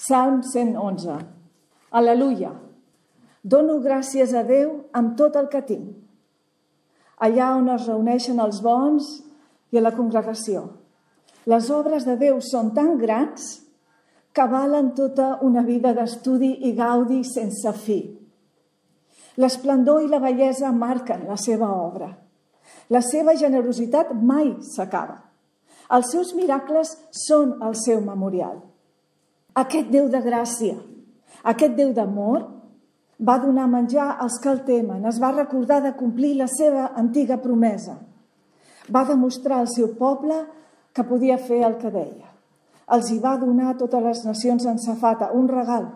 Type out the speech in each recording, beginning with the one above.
Salm 111. Aleluia! Dono gràcies a Déu amb tot el que tinc. Allà on es reuneixen els bons i a la congregació. Les obres de Déu són tan grans que valen tota una vida d'estudi i gaudi sense fi. L'esplendor i la bellesa marquen la seva obra. La seva generositat mai s'acaba. Els seus miracles són el seu memorial. Aquest Déu de gràcia, aquest Déu d'amor, va donar menjar als que el temen, es va recordar de complir la seva antiga promesa. Va demostrar al seu poble que podia fer el que deia. Els hi va donar a totes les nacions en safata un regal.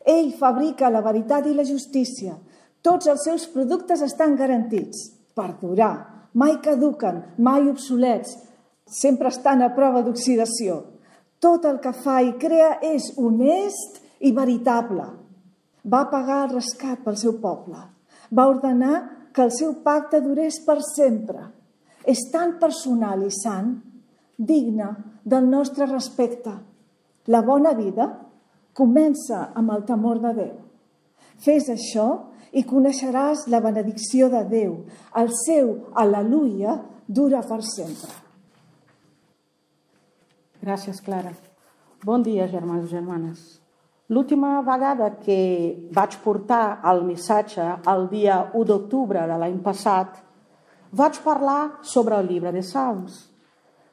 Ell fabrica la veritat i la justícia. Tots els seus productes estan garantits per durar. Mai caduquen, mai obsolets. Sempre estan a prova d'oxidació. Tot el que fa i crea és honest i veritable. Va pagar el rescat pel seu poble. Va ordenar que el seu pacte durés per sempre. És tan personal i sant, digne del nostre respecte. La bona vida comença amb el temor de Déu. Fes això i coneixeràs la benedicció de Déu. El seu aleluia dura per sempre. Gràcies, Clara. Bon dia, germans i germanes. L'última vegada que vaig portar el missatge el dia 1 d'octubre de l'any passat, vaig parlar sobre el llibre de Salms,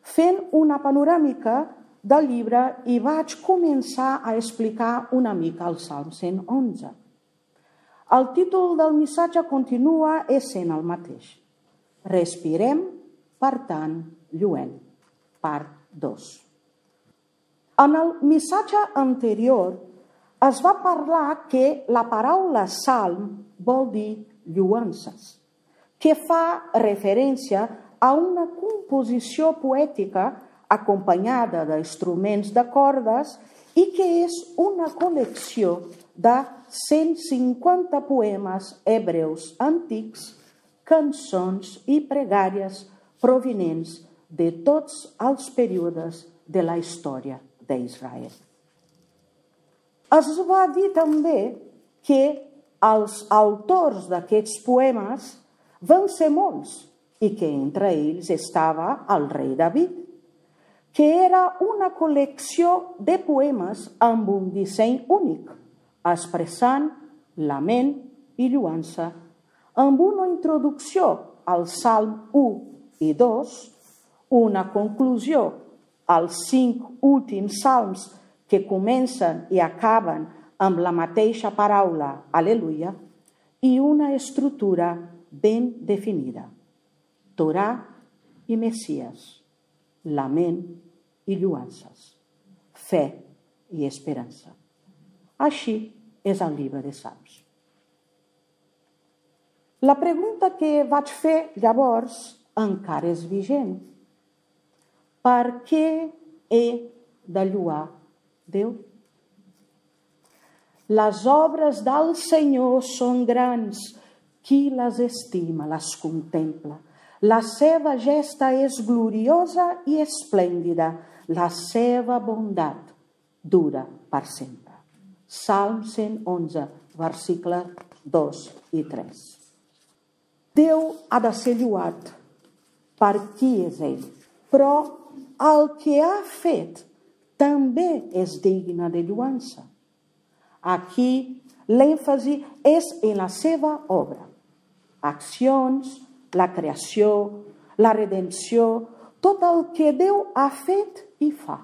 fent una panoràmica del llibre i vaig començar a explicar una mica el Salm 111. El títol del missatge continua essent el mateix. Respirem, per tant, lluent. Part 2. En el missatge anterior es va parlar que la paraula salm vol dir lluances, que fa referència a una composició poètica acompanyada d'instruments de cordes i que és una col·lecció de 150 poemes hebreus antics, cançons i pregàries provinents de tots els períodes de la història d'Israel. Es va dir també que els autors d'aquests poemes van ser molts i que entre ells estava el rei David, que era una col·lecció de poemes amb un disseny únic, expressant lament i lluança, amb una introducció al Salm 1 i 2, una conclusió als 5 últims salms que comencen i acaben amb la mateixa paraula, aleluia, i una estructura ben definida, Torà i Messies, lament i lluances, fe i esperança. Així és el llibre de Salms. La pregunta que vaig fer llavors encara és vigent. Per què he de lluar Déu? Les obres del Senyor són grans. Qui les estima, les contempla. La seva gesta és gloriosa i esplèndida. La seva bondat dura per sempre. Salm 111, versicles 2 i 3. Déu ha de ser lluat per qui és ell, però el que ha fet també és digne de lluança. Aquí l'èmfasi és en la seva obra. Accions, la creació, la redempció, tot el que Déu ha fet i fa.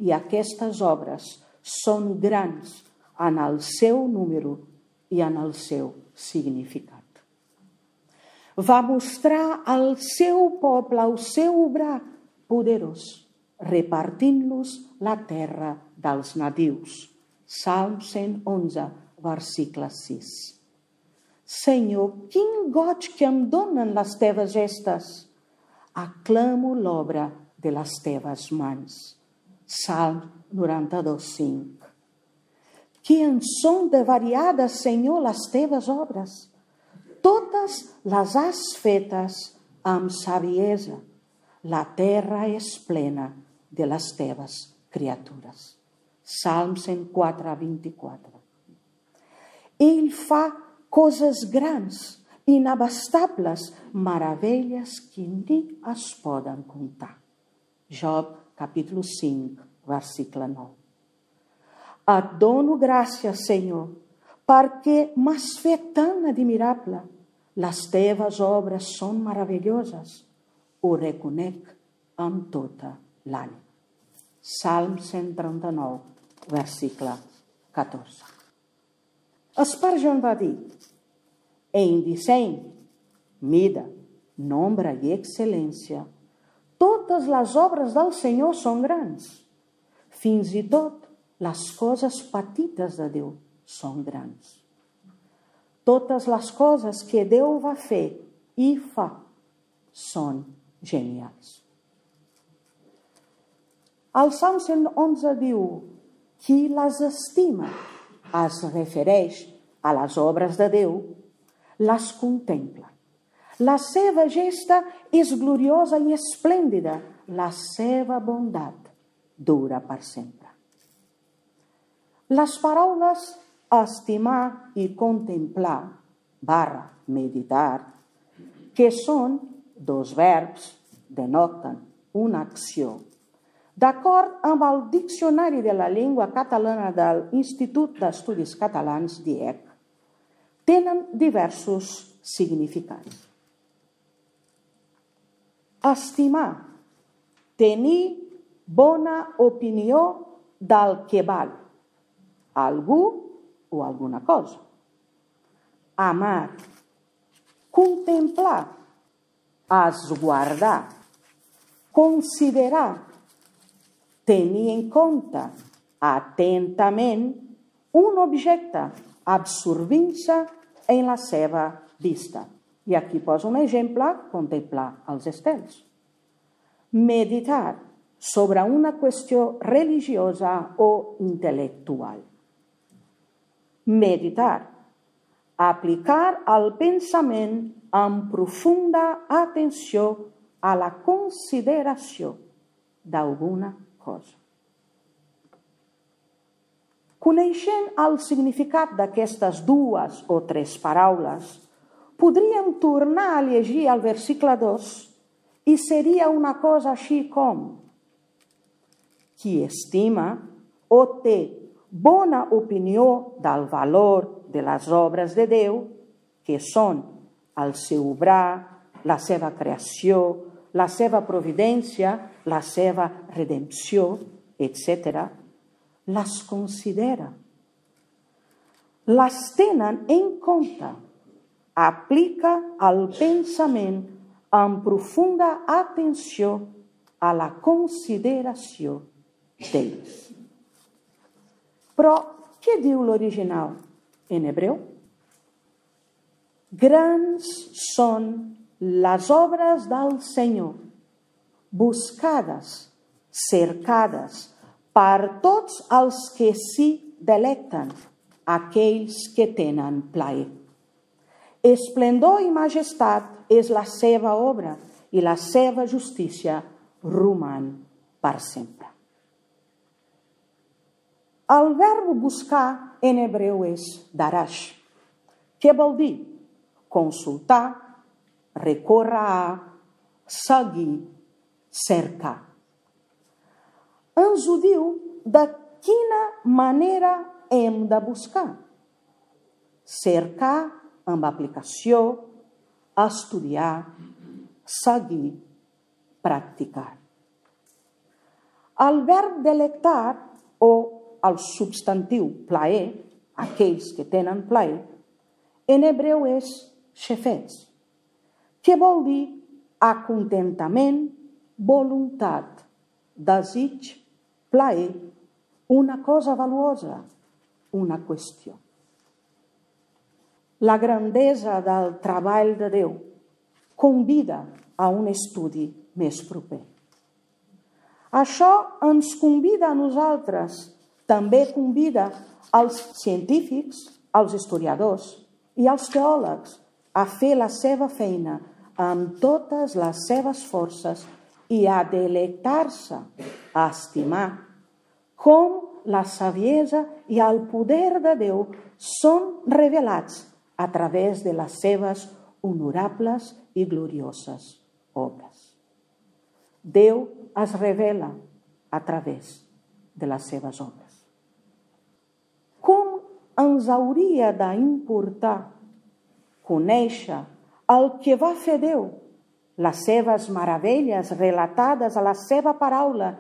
I aquestes obres són grans en el seu número i en el seu significat. Va mostrar al seu poble el seu obrar poderós, repartint-los la terra dels nadius. Salm 111, versicle 6. Senyor, quin goig que em donen les teves gestes. Aclamo l'obra de les teves mans. Salm 92, 5. Que en són de variades, Senyor, les teves obres. Totes les has fetes amb saviesa. La terra és plena de les teves criatures. Salm 104, 24. Ell fa coses grans, inabastables, meravelles que ni es poden comptar. Job, capítol 5, versicle 9. Et dono gràcies, Senyor, perquè m'has fet tan admirable. Les teves obres són meravelloses. Ho reconec amb tota l'ànima. Salm 139, versicle 14. Spurgeon va dir: en disseny, mida, nombre i excel·lència, totes les obres del Senyor són grans. Fins i tot les coses petites de Déu són grans. Totes les coses que Déu va fer i fa són genials. El Salm 111 diu: qui les estima, es refereix a les obres de Déu, les contempla. La seva gesta és gloriosa i esplèndida, la seva bondat dura per sempre. Les paraules estimar i contemplar / meditar, que són dos verbs, denoten una acció. D'acord amb el Diccionari de la Llengua Catalana de l'Institut d'Estudis Catalans, DIEC, tenen diversos significats. Estimar, tenir bona opinió del que val algú o alguna cosa. Amar, contemplar, esguardar, considerar, tenir en compte atentament un objecte, absorbint-se en la seva vista. I aquí poso un exemple: contemplar els estels. Meditar sobre una qüestió religiosa o intel·lectual. Meditar, aplicar el pensament amb profunda atenció a la consideració d'alguna cosa. Coneixent el significat d'aquestes dues o tres paraules, podríem tornar a llegir el versicle 2 i seria una cosa així com: qui estima o té bona opinió del valor de les obres de Déu, que són el seu obrar, la seva creació, la seva providència, la seva redempció, etc., les considera, les tenen en compte, aplica el pensament amb profunda atenció a la consideració d'ells. Però què diu l'original en hebreu? Grans són les obres del Senyor, buscades, cercades per tots els que s'hi delecten, aquells que tenen plaer. Esplendor i majestat és la seva obra i la seva justícia roman per sempre. El verb buscar en hebreu és darash, que vol dir consultar, recórrer a, seguir, cercar. Ens ho diu de quina manera hem de buscar. Cercar amb aplicació, estudiar, seguir, practicar. El verb delectar o el substantiu plaer, aquells que tenen plaer, en hebreu és xefetz, que vol dir acontentament, voluntat, desig, plaer, una cosa valuosa, una qüestió. La grandesa del treball de Déu convida a un estudi més proper. Això ens convida a nosaltres, també convida als científics, als historiadors i als teòlegs a fer la seva feina amb totes les seves forces i a delectar-se, a estimar, com la saviesa i el poder de Déu són revelats a través de les seves honorables i glorioses obres. Déu es revela a través de les seves obres. Com ens hauria d'importar conèixer el que va fer Déu, les seves meravelles relatades a la seva paraula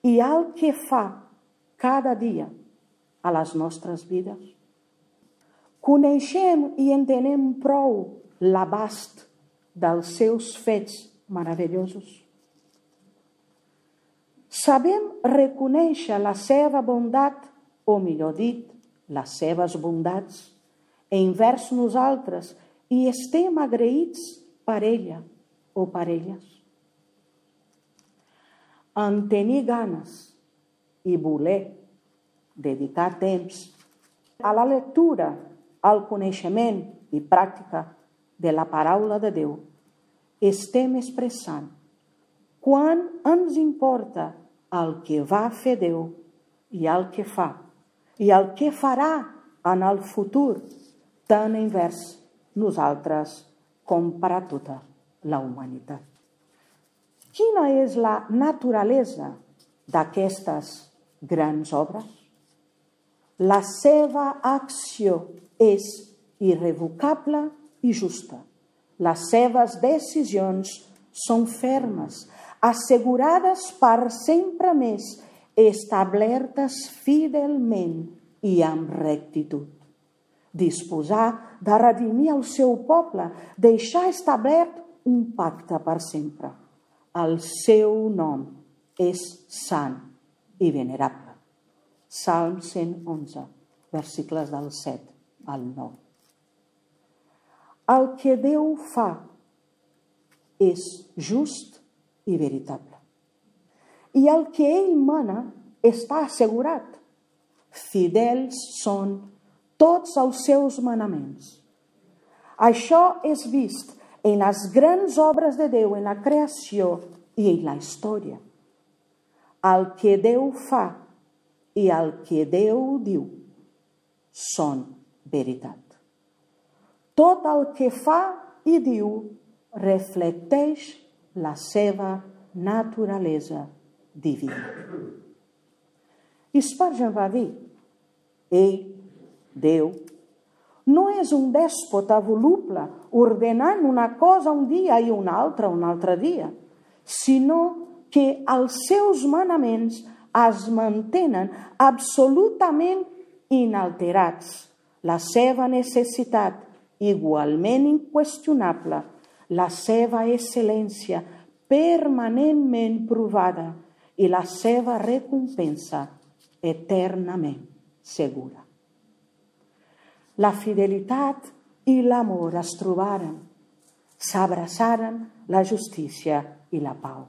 i el que fa cada dia a les nostres vides? Coneixem i entenem prou l'abast dels seus fets meravellosos. Sabem reconèixer la seva bondat, o millor dit, les seves bondats, envers nosaltres i estem agraïts per ella o per elles. En tenir ganes i voler dedicar temps a la lectura, al coneixement i pràctica de la paraula de Déu, estem expressant quan ens importa el que va fer Déu i el que fa i el que farà en el futur, tant envers nosaltres com per a tota la humanitat. Quina és la naturalesa d'aquestes grans obres? La seva acció és irrevocable i justa. Les seves decisions són fermes, assegurades per sempre més, establertes fidelment i amb rectitud. Disposar de redimir el seu poble, deixar establert un pacte per sempre. El seu nom és sant i venerable. Salm 111, versicles del 7 al 9. El que Déu fa és just i veritable. I el que ell mana està assegurat. Fidels són tots els seus manaments. Això és vist en les grans obres de Déu, en la creació i en la història. El que Déu fa i el que Déu diu són veritat. Tot el que fa i diu reflecteix la seva naturalesa divina. Spurgeon va dir: ell, Déu, no és un dèspota voluble ordenant una cosa un dia i una altra un altre dia, sinó que els seus manaments es mantenen absolutament inalterats. La seva necessitat igualment inqüestionable, la seva excel·lència permanentment provada i la seva recompensa eternament segura. La fidelitat i l'amor es trobaren, s'abraçaren la justícia i la pau.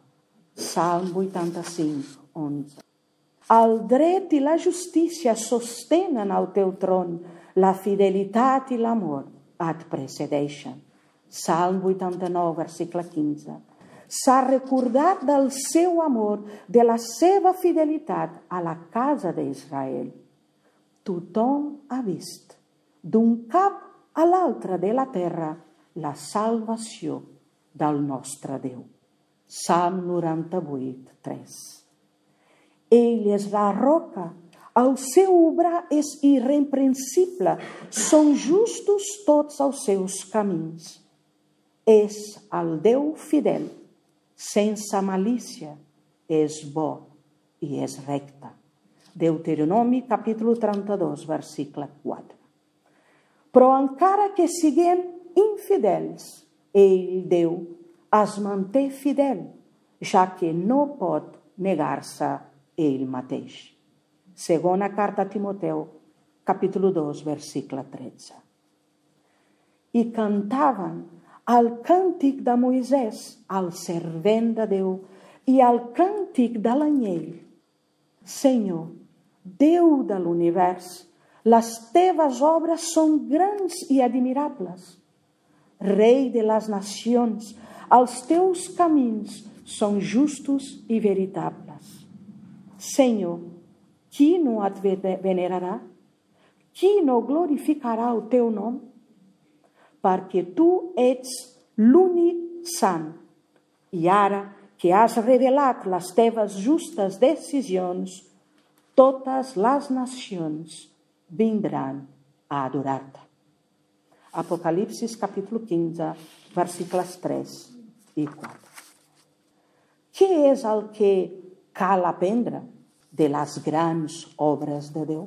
Salm 85, 11. El dret i la justícia sostenen el teu tron, la fidelitat i l'amor et precedeixen. Salm 89, versicle 15. S'ha recordat del seu amor, de la seva fidelitat a la casa d'Israel. Tothom ha vist, d'un cap a l'altre de la terra, la salvació del nostre Déu. Salm 98, 3. Ell és la roca, el seu obrar és irreprensible, són justos tots els seus camins. És el Déu fidel, sense malícia, és bo i és recte. Deuteronomi capítol 32, versicle 4. Però encara que siguem infidels, ell, Déu, es manté fidel, ja que no pot negar-se ell mateix. Segona carta a Timoteu, capítol 2, versicle 13. I cantaven el càntic de Moisès, el servent de Déu, i el càntic de l'anyell. Senyor, Déu de l'univers, les teves obres són grans i admirables. Rei de les nacions, els teus camins són justos i veritables. Senyor, qui no et venerarà? Qui no glorificarà el teu nom? Perquè tu ets l'únic sant. I ara que has revelat les teves justes decisions, totes les nacions vindran a adorar-te. Apocalipsis capítol 15, versículos 3 i 4. Què és el que cal aprendre de les grans obres de Déu?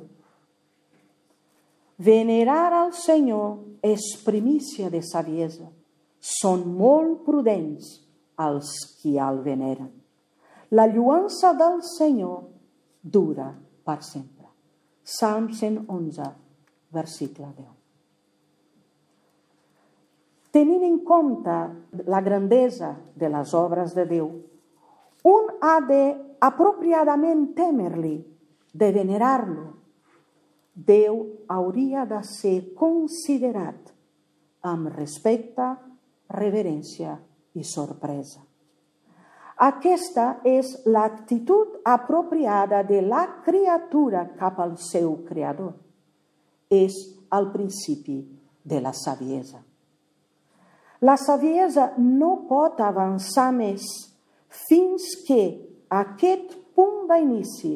Venerar al Senyor és primícia de saviesa. Són molt prudents els qui el veneren. La lluança del Senyor dura per sempre. Salm 111, versicle 10. Tenint en compte la grandesa de les obres de Déu, un ha de apropiadament temer-li, de venerar-lo. Déu hauria de ser considerat amb respecte, reverència i sorpresa. Aquesta és l'actitud apropiada de la criatura cap al seu creador. És el principi de la saviesa. La saviesa no pot avançar més fins que aquest punt d'inici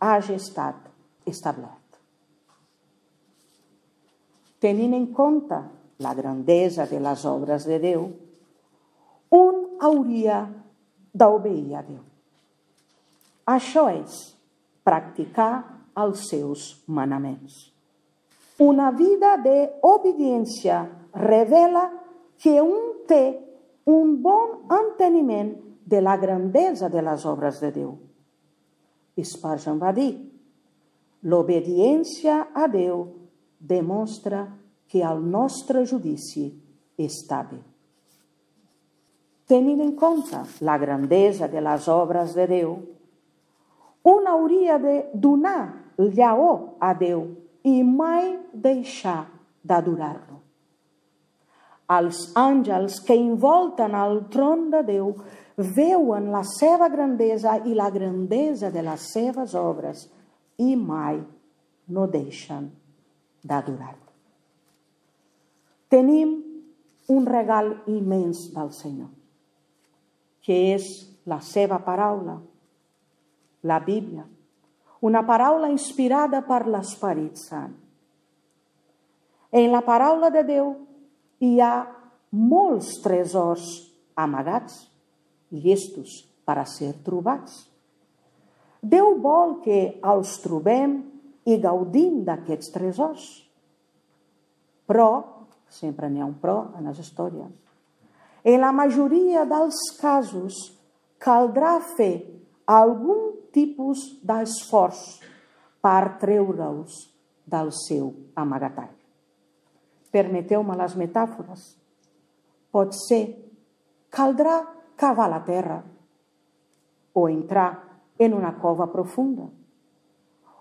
hagi estat establert. Tenint en compte la grandesa de les obres de Déu, un hauria d'obeir a Déu. Això és practicar els seus manaments. Una vida d'obediència revela que un té un bon enteniment de la grandesa de les obres de Déu. Spurgeon va dir: l'obediència a Déu demostra que el nostre judici està bé. Tenint en compte la grandesa de les obres de Déu, un hauria de donar llaor a Déu i mai deixar d'adorar-lo. Els àngels que envolten el tron de Déu veuen la seva grandesa i la grandesa de les seves obres i mai no deixen d'adorar-lo. Tenim un regal immens del Senyor, que és la seva paraula, la Bíblia, una paraula inspirada per l'Esperit Sant. En la paraula de Déu hi ha molts tresors amagats, llestos per a ser trobats. Déu vol que els trobem i gaudim d'aquests tresors. Però, sempre n'hi ha un però en les històries, en la majoria dels casos caldrà fer algun tipus d'esforç per treure-us del seu amagatall. Permeteu-me les metàfores. Potser caldrà cavar la terra o entrar en una cova profunda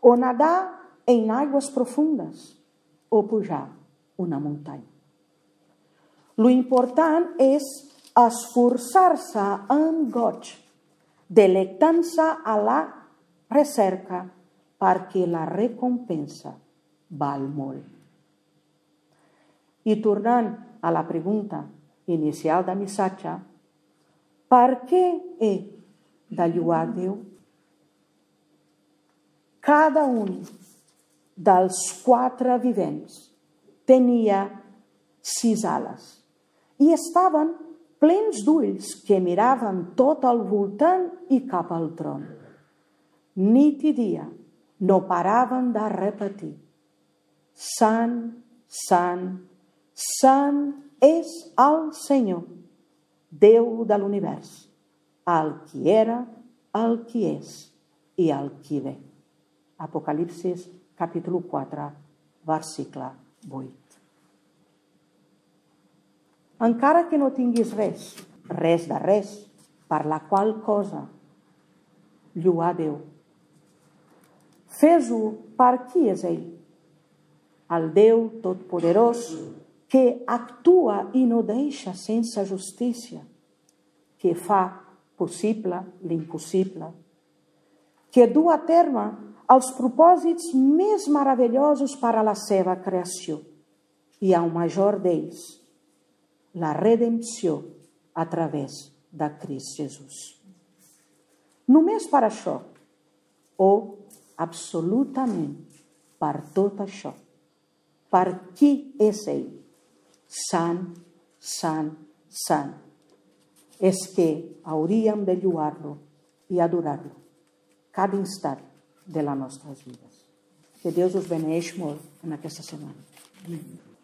o nadar en aigües profundes o pujar una muntanya. Lo important és esforçar-se amb goig, delectant-se a la recerca perquè la recompensa val molt. I tornant a la pregunta inicial del missatge, per què he de lloar Déu? Cada un dels 4 vivents tenia 6 ales i estaven plens d'ulls que miraven tot al voltant i cap al tron. Nit i dia no paraven de repetir: Sant, Sant, Sant és el Senyor, Déu de l'univers, el qui era, el qui és i el qui ve. Apocalipsis capítol 4, versicle 8. Encara que no tinguis res de res, per la qual cosa lloar Déu, fes-ho per qui és ell, el Déu totpoderós que actua i no deixa sense justícia, que fa possible l'impossible, que du a terme els propòsits més meravellosos per a la seva creació. I el major d'ells, la redempció a través de Crist Jesús. Només per això, o absolutament per tot això, per qui és ell, sant, sant, sant, és que hauríem de lloar-lo i adorar-lo cada instant de les nostres vides. Que Déu us beneeix molt en aquesta setmana. Amén.